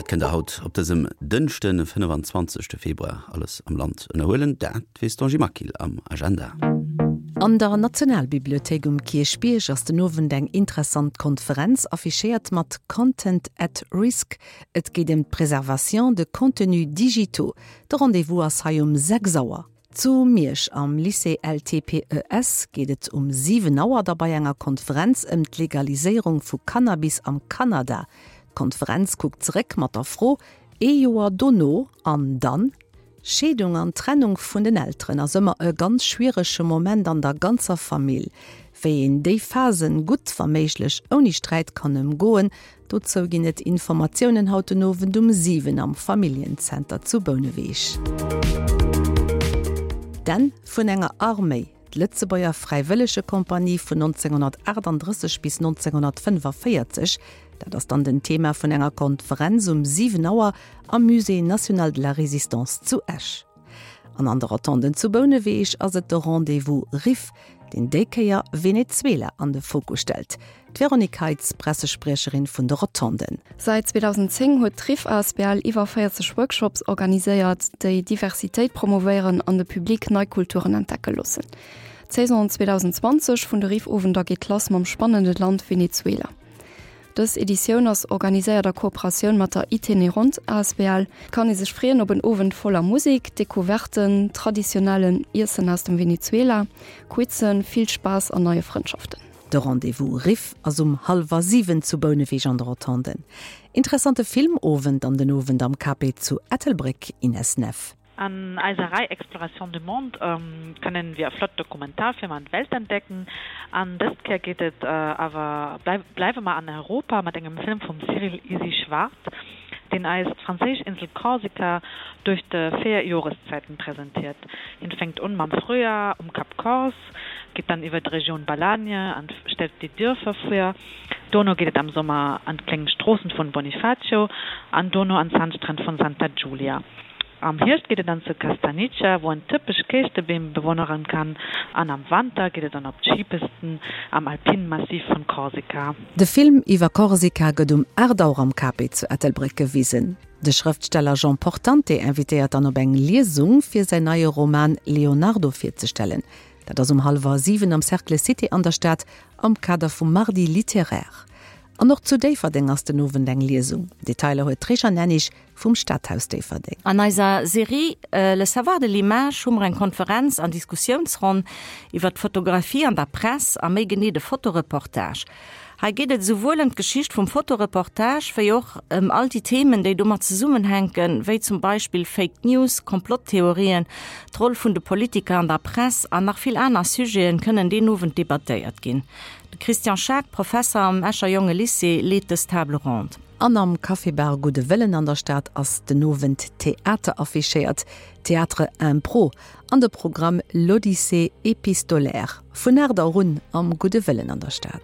Wat kënnt der haut op dësem Dënschden, 25 Februar alles am Land ënnerhuelen? Dat weess d'Angie Maquil am Agenda. An der Nationalbibliothéik um Kierchbierg ass den Owend eng interessant Konferenz affichéiert mat Content at Risk. Et geet ëm d'Préservation de contenus digitaux. De Rendez-vous ass hei um 6 Auer. Zu Miersch am Lycée LTPES geet et um 7 Auer da bei enger Konferenz ëm d'Legaliséierung vu Cannabis am Kanada. D'Konferenz kuckt zeréck mat der Fro, Ee Joer dono, an dann? Scheedung an Trennung vun den Elteren ass ëmmer e ganz schwierege Moment an der ganzer Famill. Wéi een déi Phasen gutt, wa méiglech ouni Sträit kann ëmgoen, Dozou ginn et Informatiounen haut den Owend um 7 am Familljenzenter zu Bouneweg. D'Enn vun enger Arméi, D'Lëtzebuerger Fräiwëllegekompanie vun 1938 bis 1945, dat ass dann den Thema vun enger Konferenz um 7 Auer am Musée national de la Résistance zu Esch. An an de Rotonden zu Bouneweg ass et de Rendez-vous Riff, deen déi Kéier Venezuela an de Fokus stellt. D'Véronique Heitz, Pressespriecherin vun de Rotonden. Säit 2010 huet d'Riff asbl iwwer 40 Workshops organiséiert, déi Diversitéit promovéieren an de Public nei Kulturen entdecke loossen. D'Saison 2020 vun de Riff-Owender geet lass mam spannende Land Venezuela. Dës Editioun ass organiséiert a Kooperatioun mat der Itinerant asbl. Et kann ee sech freeën op en Owend voller Musek, Decouverten, traditionellen Iessen aus dem Venezuela, Quizen, vill Spaass an neie Frëndschaften. De Rendez-vous Riff ass um hallwer 7 zu Bouneweg an de Rotonden. Interessante Filmowend an den Owend am KP zu Ettelbréck, Ines Neff. An eiser Rei Exploration du monde kënnen wir flott Dokumentarfilmer an d'Welt entdecken. An dëst Kéier geet et awer bleiwe mer an Europa mat engem Film vum Cyril Isi Schwarz, deen eis d'franséisch Insel Korsika duerch de 4 Joreszäiten presentiert. Hien fänkt un mam Frühjahr um Cap Corse, geet dann iwwer d'Regioun Balagne an stellt déi Dierfer vir. Dono geet et am Sommer an d'kléng Stroossen vun Bonifacio an dono an d'Sandstränn vun Santa Giulia. Am Hierscht geet et dann zu Castagniccia, wou en typesch Kéischtebeem bewonneren kann an am Wanter geet et dann op d'Skipisten am alpinen Massiv vun Korsika. De Film iwwer Korsika gëtt um 8 Auer am Cape zu Ettelbréck gewisen. De Schrëftsteller Jean Portante invitéiert dann op eng Liesung fir säin neie Roman Leonardo virzestellen. Dat ass um hallwer 7 am Cercle Cité an der Stad am Kader vum Mardi littéraire. An och zu Déifferdeng ass den Owend eng Liesung. Detailer huet d'Réjeanne Hennig vum Stadhaus Déifferdeng. An eiser Serie Le savoir de l'image hu mer eng Konferenz an Diskussiounsronn iwwer d'Fotografie an der Press a méi genee de Fotoreportage. Hei geet et esouwuel ëm d'Geschicht vum Fotoreportage wéi och ëm all déi Themen, déi domat zesummenhänken, wéi zum Beispill Fake News, Komplotttheorien, d'Roll vun de Politiker an der Press an nach vill aner Sujeten kënnen deen Owend debattéiert ginn. De Christian Schaack, Professer am Escher Jonge Lycée, leet dës Table ronde. An am Café-Bar Gudde Wëllen an der Stad ass den Owend Theater affichéiert, Théâtre Impro, an de Programm L'Odyssée épistolaire. Vun 8 Auer un am Gudde Wëllen an der Stad.